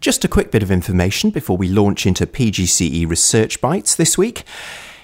Just a quick bit of information before we launch into PGCE Research Bites this week.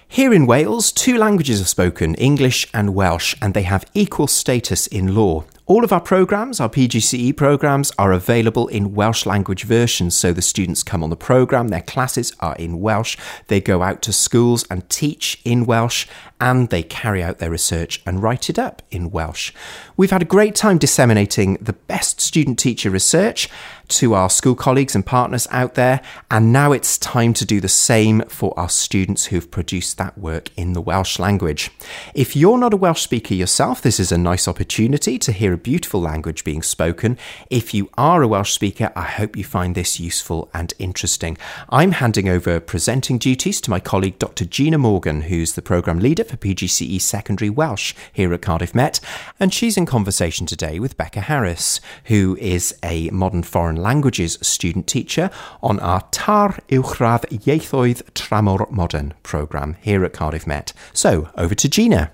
Here in Wales, two languages are spoken, English and Welsh, and they have equal status in law. All of our programmes, our PGCE programmes, are available in Welsh language versions. So the students come on the programme, their classes are in Welsh, they go out to schools and teach in Welsh, and they carry out their research and write it up in Welsh. We've had a great time disseminating the best student teacher research to our school colleagues and partners out there, and now it's time to do the same for our students who've produced that work in the Welsh language. If you're not a Welsh speaker yourself, this is a nice opportunity to hear a beautiful language being spoken. If you are a Welsh speaker, I hope you find this useful and interesting. I'm handing over presenting duties to my colleague Dr. Gina Morgan, who's the programme leader for PGCE Secondary Welsh here at Cardiff Met, and she's in conversation today with Beca Harris, who is a modern foreign languages student teacher on our TAR Uwchradd Ieithoedd Tramor Modern programme here at Cardiff Met. So, over to Gina.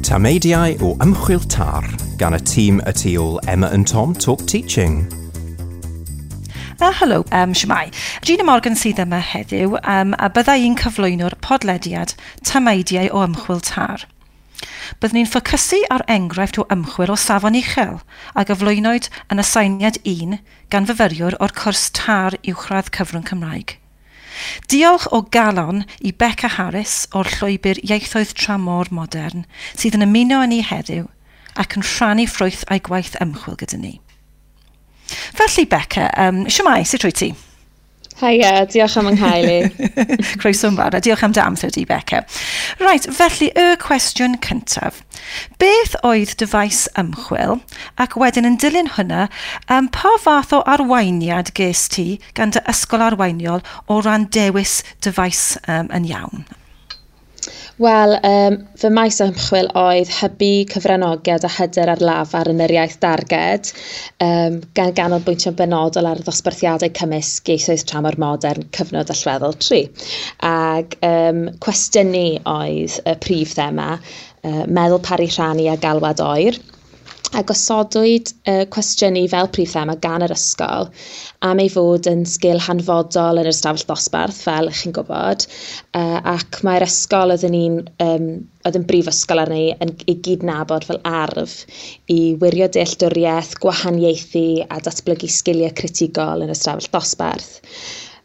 Tameidiau o Ymchwil TAR gan y tîm y tu ôl Emma and Tom Talk Teaching. Helo, shwmae. Gina Morgan sydd yma heddiw, a bydda i'n cyflwyno'r podlediad Tameidiau o Ymchwil TAR. Byddwn ni'n ffocysu ar enghraifft o ymchwil o safon uchel a gyflwynwyd yn aseiniad 1 gan fyfyriwr o'r cwrs TAR Uwchradd Cyfrwng Cymraeg. Diolch o galon i Beca Harris o'r llwybr Ieithoedd Tramor Modern sydd yn ymuno â ni heddiw ac yn rhannu ffrwyth a'i gwaith ymchwil gyda ni. Felly Beca, shwmae, sut wyt ti? Haia, diolch am 'y nghael i. Croeso yn fawr, a diolch am dy amser di, Beca. Right, felly y cwestiwn cyntaf. Beth oedd dy faes ymchwil, ac wedyn yn dilyn hwnna, pa fath o arweiniad ges ti gan dy ysgol arweiniol o ran dewis dy faes yn iawn? Wel, fy maes ymchwil oedd hybu cyfranogiad a hyder ar lafar yn yr iaith darged, gan ganolbwyntio'n benodol ar ddosbarthiadau cymysg ieithoedd tramor modern cyfnod allweddol 3. Ag cwestiynu oedd y prif thema, meddwl paru rhannu a galwad oer. A gosodwyd cwestiynu fel prif thema gan yr ysgol am ei fod yn sgil hanfodol yn yr ystafell ddosbarth, fel chi'n gwybod, ac mae'r ysgol oedd yn brifysgol arni yn ei gydnabod fel arf i wirio dealltwriaeth, gwahaniaethu a datblygu sgiliau critigol yn yr ystafell ddosbarth.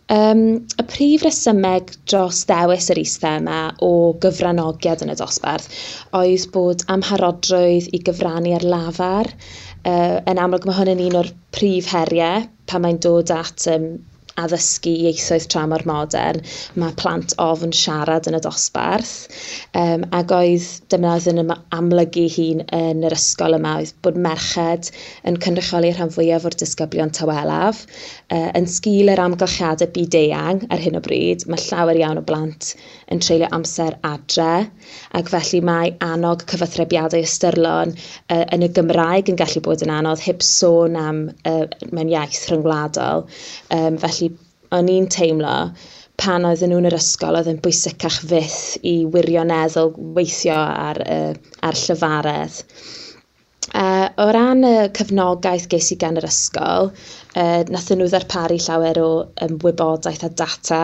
Y prif resymeg dros ddewis yr is-thema o gyfranogiad yn y dosbarth oedd bod amharodrwydd i gyfrannu ar lafar. Yn amlwg mae hwn yn un o'r prif heriau pan mae'n dod at addysgu ieithoedd tramor modern. Mae plant ofn siarad yn y dosbarth, ac oedd dyma oedd yn amlygu hun yn yr ysgol yma oedd bod merched yn cynrychioli rhan fwyaf o'r disgyblion tawelaf. Yn sgil yr amgylchiadau byd-eang ar hyn o bryd, mae llawer iawn o blant yn treulio amser adre, ac felly mae annog cyfathrebiadau ystyrlon yn y Gymraeg yn gallu bod yn anodd, heb sôn am mewn iaith rhyngwladol. Felly o'n i'n teimlo pan oedden nhw'n yr ysgol oedd yn bwysicach fyth i wirioneddol weithio ar llyfaredd. O ran y cefnogaeth ges i gan yr ysgol, nathon nhw ddarparu llawer o wybodaeth a data,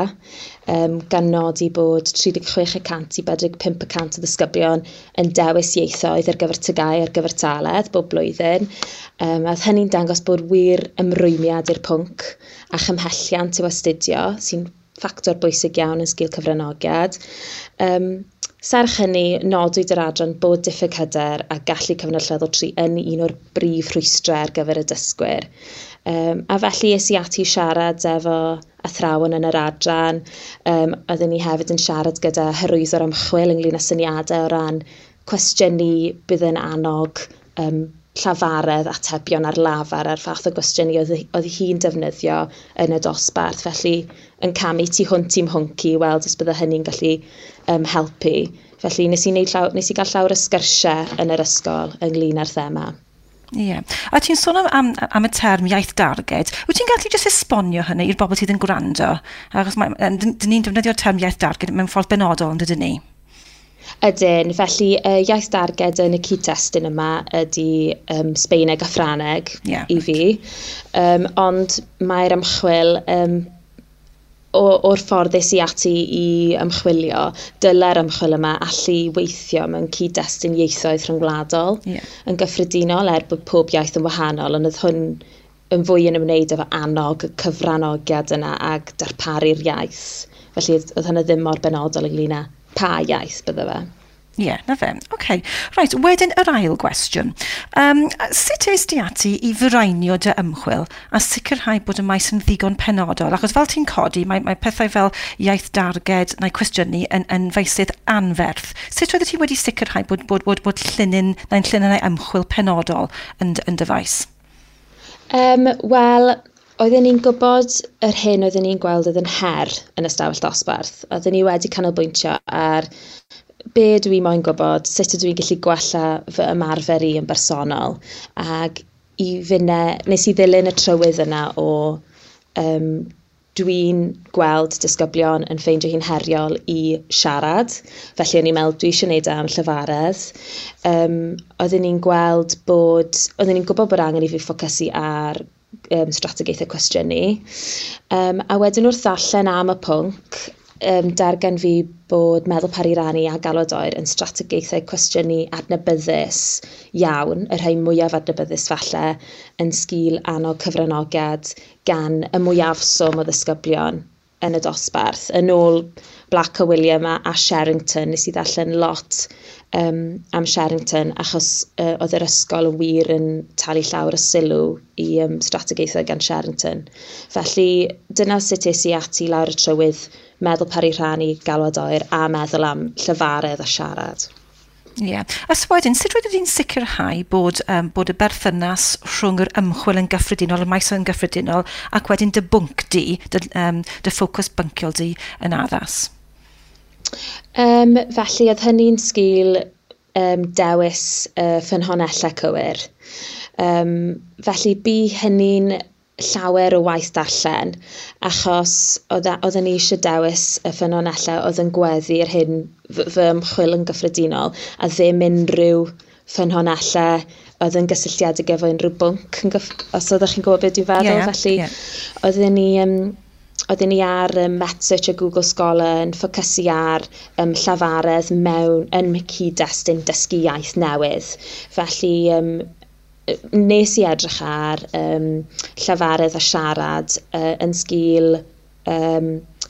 gan nodi bod 36% i 45% o ddisgyblion yn dewis ieithoedd ar gyfer TGAU ar gyfer taledd bob blwyddyn. A oedd hynny'n dangos bod wir ymrwymiad i'r pwnc a chymhelliant i'w astudio, sy'n ffactor bwysig iawn yn sgil cyfranogiad. Serch hynny, nodwyd yr adran bod diffyg hyder a gallu cyfnod allweddol 3 yn un o'r brif rhwystrau ar gyfer y dysgwyr. A felly es i ati siarad efo athrawon yn yr adran. Oedden ni hefyd yn siarad gyda hyrwyddwr ymchwil ynglyn â syniadau o ran cwestiynu bydd yn annog llafaredd atebion ar lafar a'r fath o gwestiynu oedd hi'n defnyddio yn y dosbarth. Felly yn camu tu hwnt i'm hwnc i weld os bydde hynny'n gallu helpu. Felly nes i gael llawer o sgyrsiau yn yr ysgol ynglyn â'r thema. Ie. Yeah. A ti'n sôn am y term iaith darged. Wyt ti'n gallu jyst esbonio hynny i'r bobl sydd yn gwrando? Achos dyn ni'n defnyddio'r term iaith darged mewn ffordd benodol, yn dydyn ni? Ydyn, felly iaith darged yn y cyd-destun yma ydy Sbeineg a Ffraneg i fi. Ond mae'r ymchwil o'r ffordd es i ati i ymchwilio, dyle'r ymchwil yma allu weithio mewn cyd-destun ieithoedd rhyngwladol yn gyffredinol, er bod pob iaith yn wahanol, ond oedd hwn yn fwy yn ymwneud efo annog y cyfranogiad yna ag darparu'r iaith. Felly oedd hynny ddim mor benodol ynglyn â pa iaith bydde fe. Ie, yeah, na fe. OK. Right, wedyn yr ail gwestiwn. Sut es di ati i fireinio dy ymchwil a sicrhau bod y maes yn ddigon penodol? Achos fel ti'n codi, mae pethau fel iaith darged neu cwestiynu yn feysydd anferth. Sut oeddet ti wedi sicrhau bod llinyn neu'n llinynnau ymchwil penodol yn dy faes? Wel, oedden ni'n gwybod yr hyn oedden ni'n gweld oedd yn her yn y stafell dosbarth. Oedden ni wedi canolbwyntio ar be dwi moyn gwybod, sut ydw i'n gallu gwella fy ymarfer i yn bersonol. Ac i finne, nes i ddilyn y trywydd yna o dwi'n gweld disgyblion yn ffeindio hi'n heriol i siarad. Felly o'n i'n meddwl dwi eisiau gwneud am llyfaredd. Oedden ni'n gweld bod, oedden ni'n gwybod bod angen i fi ffocysu ar strategaethau cwestiynu. A wedyn wrth ddarllen am y pwnc, dargan fi bod meddwl pari rannu a galwad oer yn strategaethau cwestiynu adnabyddus iawn, y rhai mwyaf adnabyddus falle, yn sgil annog cyfranogiad gan y mwyafswm o ddisgyblion yn y dosbarth. Yn ôl Black a William a Sherrington, nes i ddarllen lot am Sherrington, achos oedd yr ysgol yn wir yn talu llawer o sylw i strategaethau gan Sherrington. Felly dyna sut es i ati lawr y trywydd meddwl pari rhannu, galwad oer a meddwl am llyfaredd a siarad. Ie. Yeah. A so wedyn, sut roeddet ti'n sicrhau bod y berthynas rhwng yr ymchwil yn gyffredinol, y maes yn gyffredinol, ac wedyn dy bwnc di, dy ffocws bynciol di yn addas? Felly, oedd hynny'n sgil dewis ffynhonnellau cywir. Felly, bu hynny'n llawer o waith darllen, achos oedden ni eisiau dewis y ffynonellau oedd yn gweddu yr hyn fy ymchwil yn gyffredinol, a ddim unrhyw ffynonellau oedd yn gysylltiedig efo unrhyw bwnc, os oeddech chi'n gwybod beth dwi'n feddwl. Yeah, felly yeah. Oedden ni ar MetSearch a Google Scholar yn ffocysu ar llafaredd mewn yn cyd-destun dysgu iaith newydd. Felly nes i edrych ar llafaredd a siarad yn sgil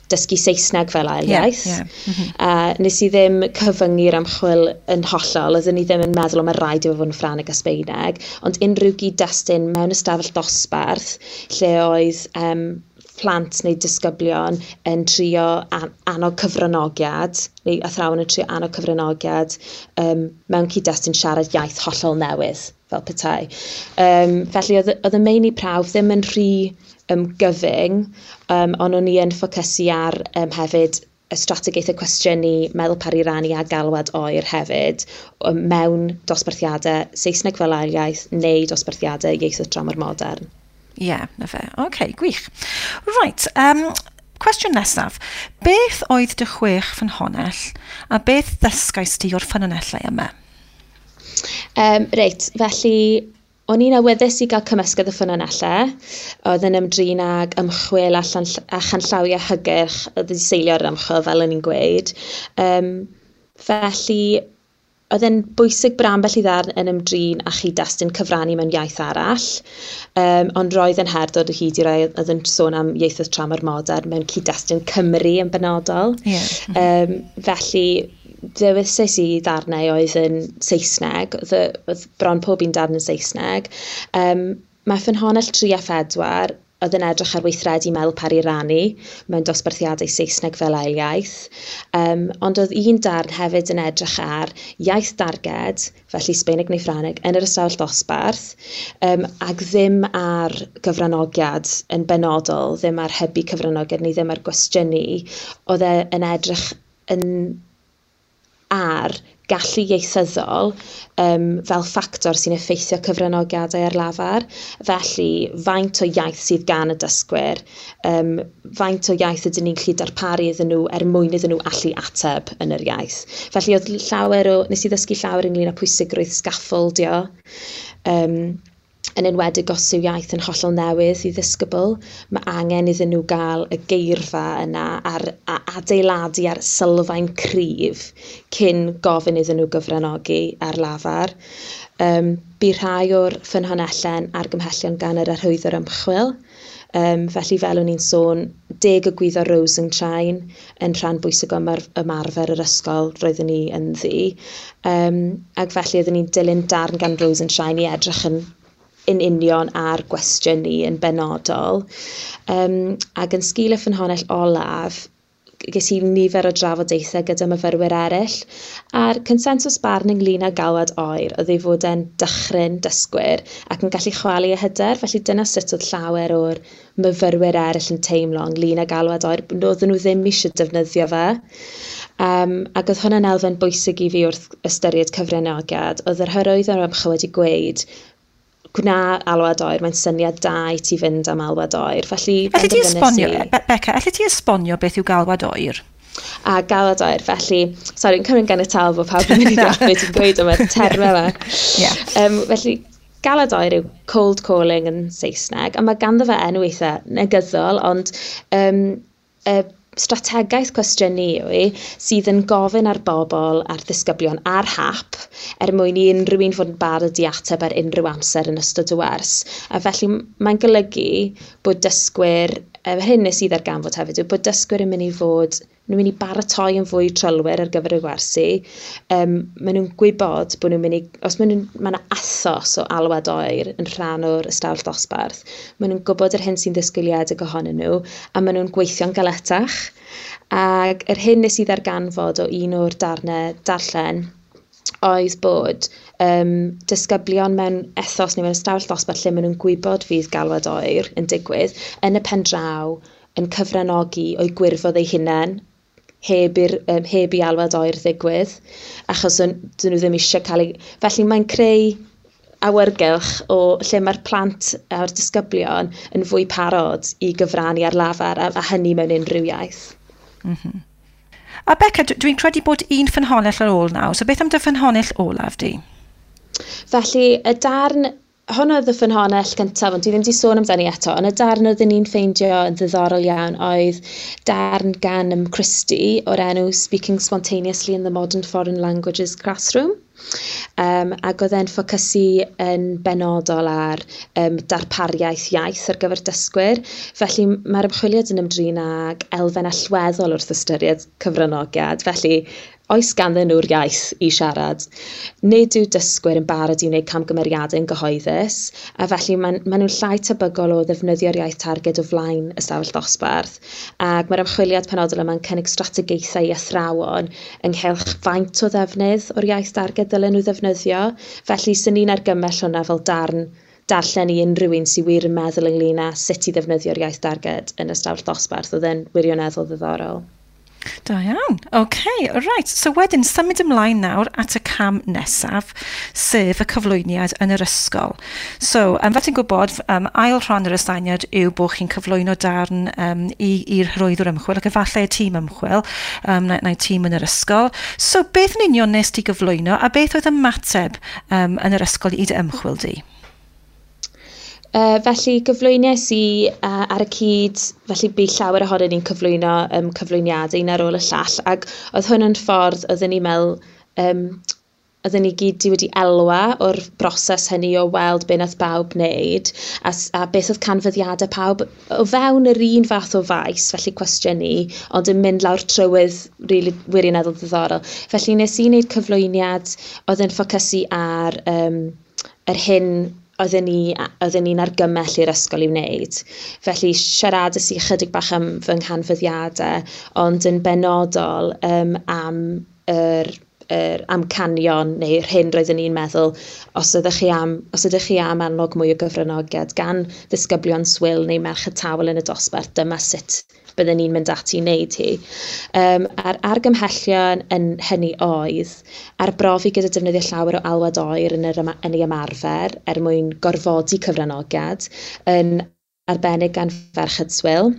dysgu Saesneg fel ail iaith. Yeah, yeah. Mm -hmm. Nes i ddim cyfyngu'r ymchwil yn hollol, oeddwn i ddim yn meddwl o mae rhaid i fod yn Ffrangeg a Sbeineg, ond unrhyw gyd-destun mewn ystafell dosbarth lle oedd plant neu disgyblion yn trio annog cyfranogiad, neu athrawon yn trio annog cyfranogiad mewn cyd-destun siarad iaith hollol newydd, fel petai. Felly oedd y meini prawf ddim yn rhy gyfyng, ond o'n i yn ffocysu ar hefyd y strategaethau cwestiynu, meddwl pari rannu a galwad oer hefyd, mewn dosbarthiadau Saesneg fel ail iaith neu dosbarthiadau ieithoedd dramor modern. Ie, yeah, na fe. OK, gwych. Right, cwestiwn nesaf. Beth oedd dy 6 ffynhonnell a beth ddysgais ti o'r ffynonellau yma? Reit, felly o'n i'n awyddus i gael cymysgedd y ffynonellau. Oedd yn ymdrin ag ymchwil a chanllawiau hygyrch oedd wedi seilio ar ymchwil, fel o'n i'n gweud. Felly, oedd e'n bwysig bod ambell i ddarn yn ymdrin â chyd-destun cyfrannu mewn iaith arall, ond roedd yn her dod o hyd i rai oedd yn sôn am ieithoedd tramor modern mewn cyd-destun Cymru yn benodol. Yeah. Felly, dewisais i ddarnau oedd yn Saesneg, oedd bron pob un darn yn Saesneg. Mae ffynhonnell 3 a 4 oedd yn edrych ar weithredu meddwl pari rannu mewn dosbarthiadau Saesneg fel ail iaith. Ond oedd un darn hefyd yn edrych ar iaith darged, felly Sbeineg neu Ffrangeg, yn yr ystafell dosbarth, ac ddim ar gyfranogiad yn benodol, ddim ar hybu cyfranogiad neu ddim ar gwestiynu. Oedd e yn edrych yn ar gallu ieithyddol fel ffactor sy'n effeithio cyfranogiadau ar lafar. Felly, faint o iaith sydd gan y dysgwyr, faint o iaith ydyn ni'n gallu darparu iddyn nhw er mwyn iddyn nhw allu ateb yn yr iaith. Felly, oedd llawer o, nes i ddysgu llawer ynglyn â pwysigrwydd scaffoldio, yn enwedig os yw iaith yn hollol newydd i ddisgybl, mae angen iddyn nhw gael y geirfa yna a'r, a adeiladu ar sylfaen cryf cyn gofyn iddyn nhw gyfranogi ar lafar. Bu rhai o'r ffynhonnellau'n argymhellion gan yr arhwyddwr ymchwil. Felly fel o'n i'n sôn, 10 egwyddor Rosenshine yn rhan bwysig o ymarfer yr ysgol roeddwn ni ynddi. Ac felly oeddwn ni'n dilyn darn gan Rosenshine i edrych yn union ar gwestiwn ni yn benodol. Ac yn sgil y ffynhonnell olaf, ges i nifer o drafodaethau gyda myfyrwyr eraill, a'r consensws barn ynglyn â galwad oer oedd ei fod e'n dychryn dysgwyr ac yn gallu chwalu eu hyder, felly dyna sut oedd llawer o'r myfyrwyr eraill yn teimlo ynglyn â galwad oer, oedden nhw ddim eisiau defnyddio fe. Ac oedd hwnna'n elfen bwysig i fi wrth ystyried cyfranogiad. Oedd yr hyrwyddwr ymchwil wedi gweud, gwna alwad oer, mae'n syniad da i ti fynd am alwad oer. Felly, Elli di esbonio, Beca, elli ti esbonio beth yw galwad oer? A galwad oer, felly, sori, yn cymryd ganiataol bod pawb yn mynd i ddeall beth ti'n gweud am y termau yma. Felly, galwad oer yw cold calling yn Saesneg, a mae ganddo fe enw eitha negyddol, ond strategaeth cwestiynu yw i sydd yn gofyn ar bobl, ar ddisgyblion, ar hap, er mwyn i unrhyw un fod yn barod i ateb ar unrhyw amser yn ystod y wers. A felly mae'n golygu bod dysgwyr, hyn nes i ddarganfod hefyd, yw bod dysgwyr yn mynd i fod, nhw'n mynd i baratoi yn fwy trylwyr ar gyfer y gwersi. Maen nhw'n gwybod bod nhw'n mynd i, os maen nhw'n, mae yna ethos o alwad oer yn rhan o'r ystafell ddosbarth, maen nhw'n gwybod yr hyn sy'n ddisgwyliedig ohonyn nhw, a maen nhw'n gweithio'n galetach. Ac yr hyn nes i ddarganfod o un o'r darnau darllen oedd bod disgyblion mewn ethos neu mewn ystafell ddosbarth lle maen nhw'n gwybod fydd galwad oer yn digwydd, yn y pen draw yn cyfranogi o'u gwirfodd eu hunain, heb i alwad oer ddigwydd, achos dyn nhw ddim eisiau cael ei... Felly mae'n creu awyrgylch o lle mae'r plant a'r disgyblion yn fwy parod i gyfrannu ar lafar, a hynny mewn unrhyw iaith. A Beca, dwi'n credu bod un ffynhonnell ar ôl nawr, so beth am dy ffynhonnell olaf di? Felly, y darn... Hwn oedd y ffynhonnell gyntaf, ond dwi ddim wedi sôn amdani eto, ond y darn oeddwn ni'n ffeindio yn ddiddorol iawn oedd darn gan Christie o'r enw Speaking Spontaneously in the Modern Foreign Languages Classroom. Ac oedd e'n ffocysu yn benodol ar darpariaeth iaith ar gyfer dysgwyr. Felly mae'r ymchwiliad yn ymdrin ag elfen allweddol wrth ystyried cyfranogiad. Felly, oes ganddyn nhw'r iaith i siarad? Nid yw dysgwyr yn barod i wneud camgymeriadau yn gyhoeddus, a felly maen nhw'n llai tebygol o ddefnyddio'r iaith targed o flaen ystafell ddosbarth. Ac mae'r ymchwiliad penodol yma'n cynnig strategaethau i athrawon ynghylch faint o ddefnydd o'r iaith darged ddylen nhw ddefnyddio. Felly, swn i'n argymell hwnna fel darn darllen i unrhyw un sydd wir yn meddwl ynglyn â sut i ddefnyddio'r iaith darged yn ystafell ddosbarth. Oedd e'n wirioneddol ddiddorol. Da iawn. OK, right. So wedyn, symud ymlaen nawr at y cam nesaf, sef y cyflwyniad yn yr ysgol. So, fel ti'n gwybod, ail rhan yr aseiniad yw bod chi'n cyflwyno darn i'r hyrwyddwr ymchwil, ac efallai y tîm ymchwil, neu tîm yn yr ysgol. So, beth yn union nes ti gyflwyno, a beth oedd ymateb yn yr ysgol i dy ymchwil di? Felly gyflwyniais i ar y cyd, felly bu llawer ohonyn ni'n cyflwyno cyflwyniadau un ar ôl y llall, ac oedd hwn yn ffordd oedden ni'n meddwl, oedden ni gyd wedi elwa o'r broses hynny o weld be nath bawb wneud, a beth oedd canfyddiadau pawb o fewn yr un fath o faes, felly cwestiynu, ond yn mynd lawr trywydd really wirioneddol ddiddorol. Felly nes i wneud cyflwyniad oedd yn ffocysu ar yr hyn oedden ni'n argymell i'r ysgol i wneud. Felly siaradais i ychydig bach am fy nghanfyddiadau, ond yn benodol am yr amcanion neu'r hyn roeddwn ni'n meddwl, os ydych chi am annog mwy o gyfranogiad gan ddisgyblion swil neu merched tawel yn y dosbarth, dyma sut bydden ni'n mynd ati i wneud hi. A'r argymhellion yn hynny oedd arbrofi gyda defnyddio llawer o alwad oer yn ei ymarfer er mwyn gorfodi cyfranogiad, yn arbennig gan ferched swil.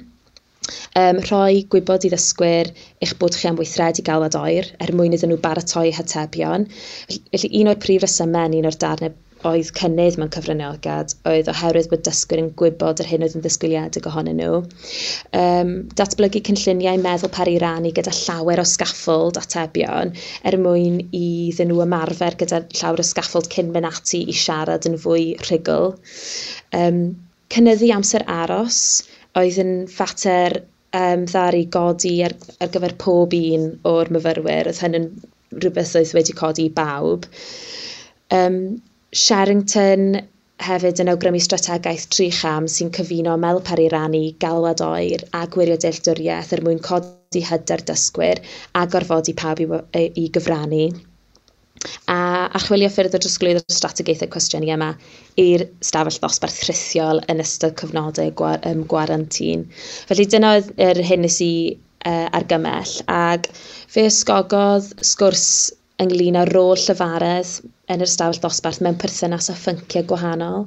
Rhoi gwybod i ddysgwyr eich bod chi am weithredu galwad oer er mwyn iddyn nhw baratoi hatebion. Felly un o'r prif resymau yn un o'r darnau oedd cynnydd mewn cyfranogiad oedd oherwydd bod dysgwyr yn gwybod yr hyn oedd yn ddisgwyliedig ohonyn nhw. Datblygu cynlluniau meddwl peri rannu gyda llawer o scaffold atebion er mwyn iddyn nhw ymarfer gyda llawer o scaffold cyn mynd ati i siarad yn fwy rhugl. Cynyddu amser aros oedd yn fater ddaru godi ar gyfer pob un o'r myfyrwyr. Oedd hyn yn rhywbeth oedd wedi codi i bawb. Sherrington hefyd yn awgrymu strategaeth 3 cham sy'n cyfuno meddwl peri rannu, galwad oer a gwirio dealltwriaeth er mwyn codi hyder dysgwyr a gorfodi pawb i gyfrannu. A archwilio ffyrdd o drosglwyddo'r strategaethau cwestiynu yma i'r stafell ddosbarth rhithiol yn ystod cyfnodau gwarantin. Felly dyna oedd yr hyn nes i argymell, ac fe ysgogodd sgwrs ynglyn â rôl llefaredd yn yr ystafell ddosbarth mewn perthynas â phynciau gwahanol,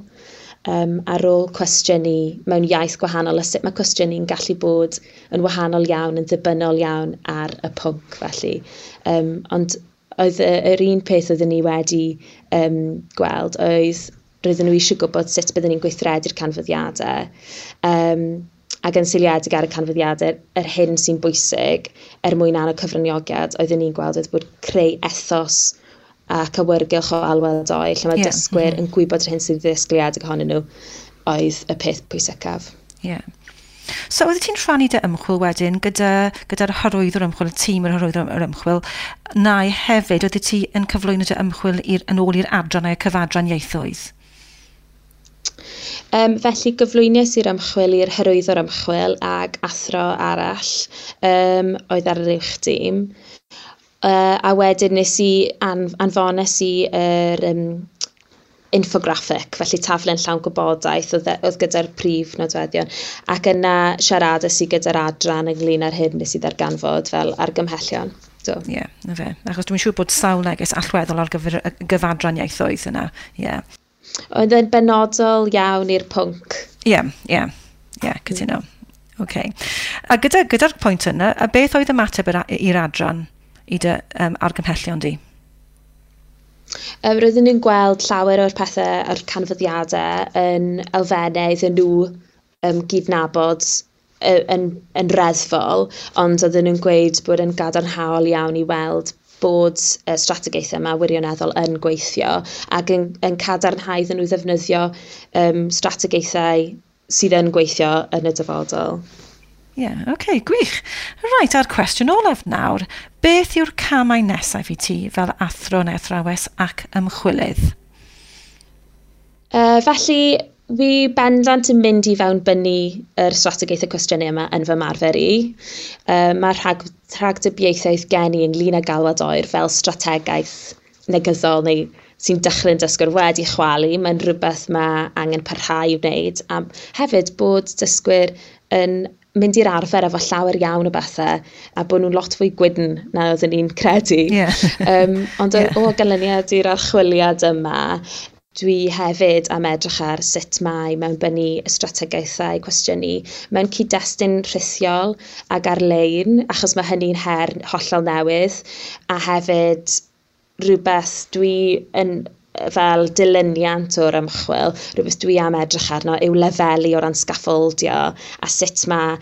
a rôl cwestiynu mewn iaith gwahanol, a sut mae cwestiynu'n gallu bod yn wahanol iawn, yn ddibynnol iawn ar y pwnc felly. Ond oedd yr un peth oedden ni wedi gweld oedd roedden nhw eisiau gwybod sut bydden ni'n gweithredu'r canfyddiadau, ac yn seiliedig ar y canfyddiadau, yr hyn sy'n bwysig er mwyn annog cyfranogiad, oedden ni'n gweld oedd bod creu ethos ac awyrgylch o alwad oer, lle mae dysgwyr yn gwybod yr hyn sy'n ddisgwyliedig ohonyn nhw, oedd y peth pwysicaf. Yeah. So, oeddet ti'n rhannu dy ymchwil wedyn gyda'r hyrwyddwr ymchwil, y tîm yr hyrwyddwr ymchwil, neu hefyd, oeddet ti yn cyflwyno dy ymchwil yn ôl i'r adran neu'r cyfadran ieithoedd? Felly gyflwynais i'r ymchwil i'r hyrwyddwr ymchwil ag athro arall oedd ar yr uwch dîm. A wedyn nes i anfones i yr infographic, felly taflen llawn gwybodaeth oedd gyda'r prif nodweddion, ac yna siaradais i gyda'r adran ynglyn â'r hyn nes i ddarganfod fel argymhellion. Ie, yeah, na fe. Achos dwi'n siŵr bod sawl neges allweddol ar gyfer y gyfadran ieithoedd yna. Yeah. Oedd yn benodol iawn i'r pwnc. Ie, cytuno. Okay. A gyda'r pwynt yna, a beth oedd ymateb i'r adran i dy argymhellion di? Roedden nhw'n gweld llawer o'r pethau a'r canfyddiadau yn elfennau iddyn nhw gydnabod yn reddfol, ond oedden nhw'n gweud bod yn gadarnhaol iawn i weld bod y strategaethau yma wirioneddol yn gweithio ac yn cadarnhau iddyn nhw ddefnyddio strategaethau sydd yn gweithio yn y dyfodol. Ie, yeah, okay, gwych. Reit, a'r cwestiwn olaf nawr. Beth yw'r camau nesaf i ti fel athro neu athrawes ac ymchwilydd? Felly, fi bendant yn mynd i fewnbynnu yr strategaethau cwestiynu yma yn fy marfer i. Mae rhagdybiaethau gen i ynglyn â galwad oer fel strategaeth negyddol neu sy'n dechrau'n dysgwyr wedi chwalu. Mae'n rhywbeth mae angen parhau i wneud. A hefyd bod dysgwyr yn mynd i'r arfer efo llawer iawn o bethau a bod nhw'n lot fwy gwydn na oedden ni'n credu. Yeah. Ond o ganlyniad i'r archwiliad yma, dwi hefyd am edrych ar sut mae mewnbynnu y strategaethau cwestiynu mewn cyd-destun rhithiol ac ar-lein, achos mae hynny'n her hollol newydd, a hefyd rhywbeth dwi yn fel dilyniant o'r ymchwil, rhywbeth dwi am edrych arno yw lefelu o ran scaffoldio a sut mae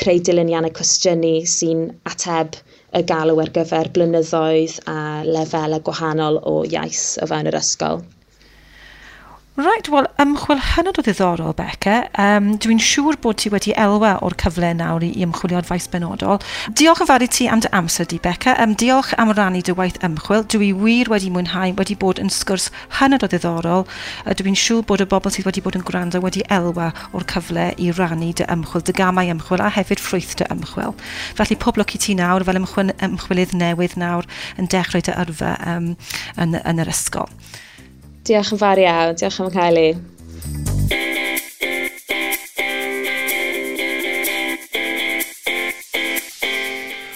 creu dilyniannau cwestiynu sy'n ateb y galw ar gyfer blynyddoedd a lefelau gwahanol o iaith o fewn yr ysgol. Right, wel, ymchwil hynod o ddiddorol, Beca. Dwi'n siŵr bod ti wedi elwa o'r cyfle nawr i ymchwilio'r faes benodol. Diolch yn fawr i ti am dy amser di, Beca. Diolch am rannu dy waith ymchwil. Dwi wir wedi mwynhau, wedi bod yn sgwrs hynod o ddiddorol. Dwi'n siŵr bod y bobl sydd wedi bod yn gwrando wedi elwa o'r cyfle i rannu dy ymchwil, dy gamau ymchwil a hefyd ffrwyth dy ymchwil. Felly pob lwc i ti nawr fel ymchwilydd newydd nawr yn dechrau dy yrfa yn yr ysgol. Diolch yn fawr iawn, diolch am cael i.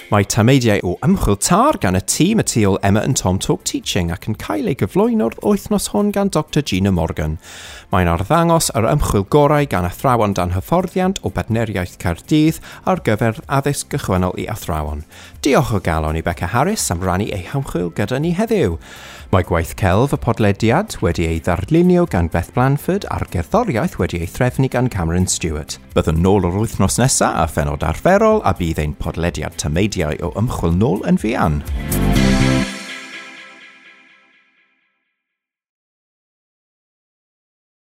Mae tameidiau o ymchwil TAR gan y tîm y tu ôl Emma and Tom Talk Teaching ac yn cael ei gyflwyno'r wythnos hwn gan Dr Gina Morgan. Mae'n arddangos yr ymchwil gorau gan athrawon dan hyfforddiant o Badneriaeth Caerdydd ar gyfer addysg gychwynnol i athrawon. Diolch o galon i Beca Harris am rannu ei hymchwil gyda ni heddiw. Mae gwaith celf y podlediad wedi ei ddarlunio gan Beth Blanford a'r gerddoriaeth wedi ei threfnu gan Cameron Stewart. Byddwn nôl yr wythnos nesaf a phenod arferol a bydd ein podlediad tameidiau o ymchwil nôl yn fuan.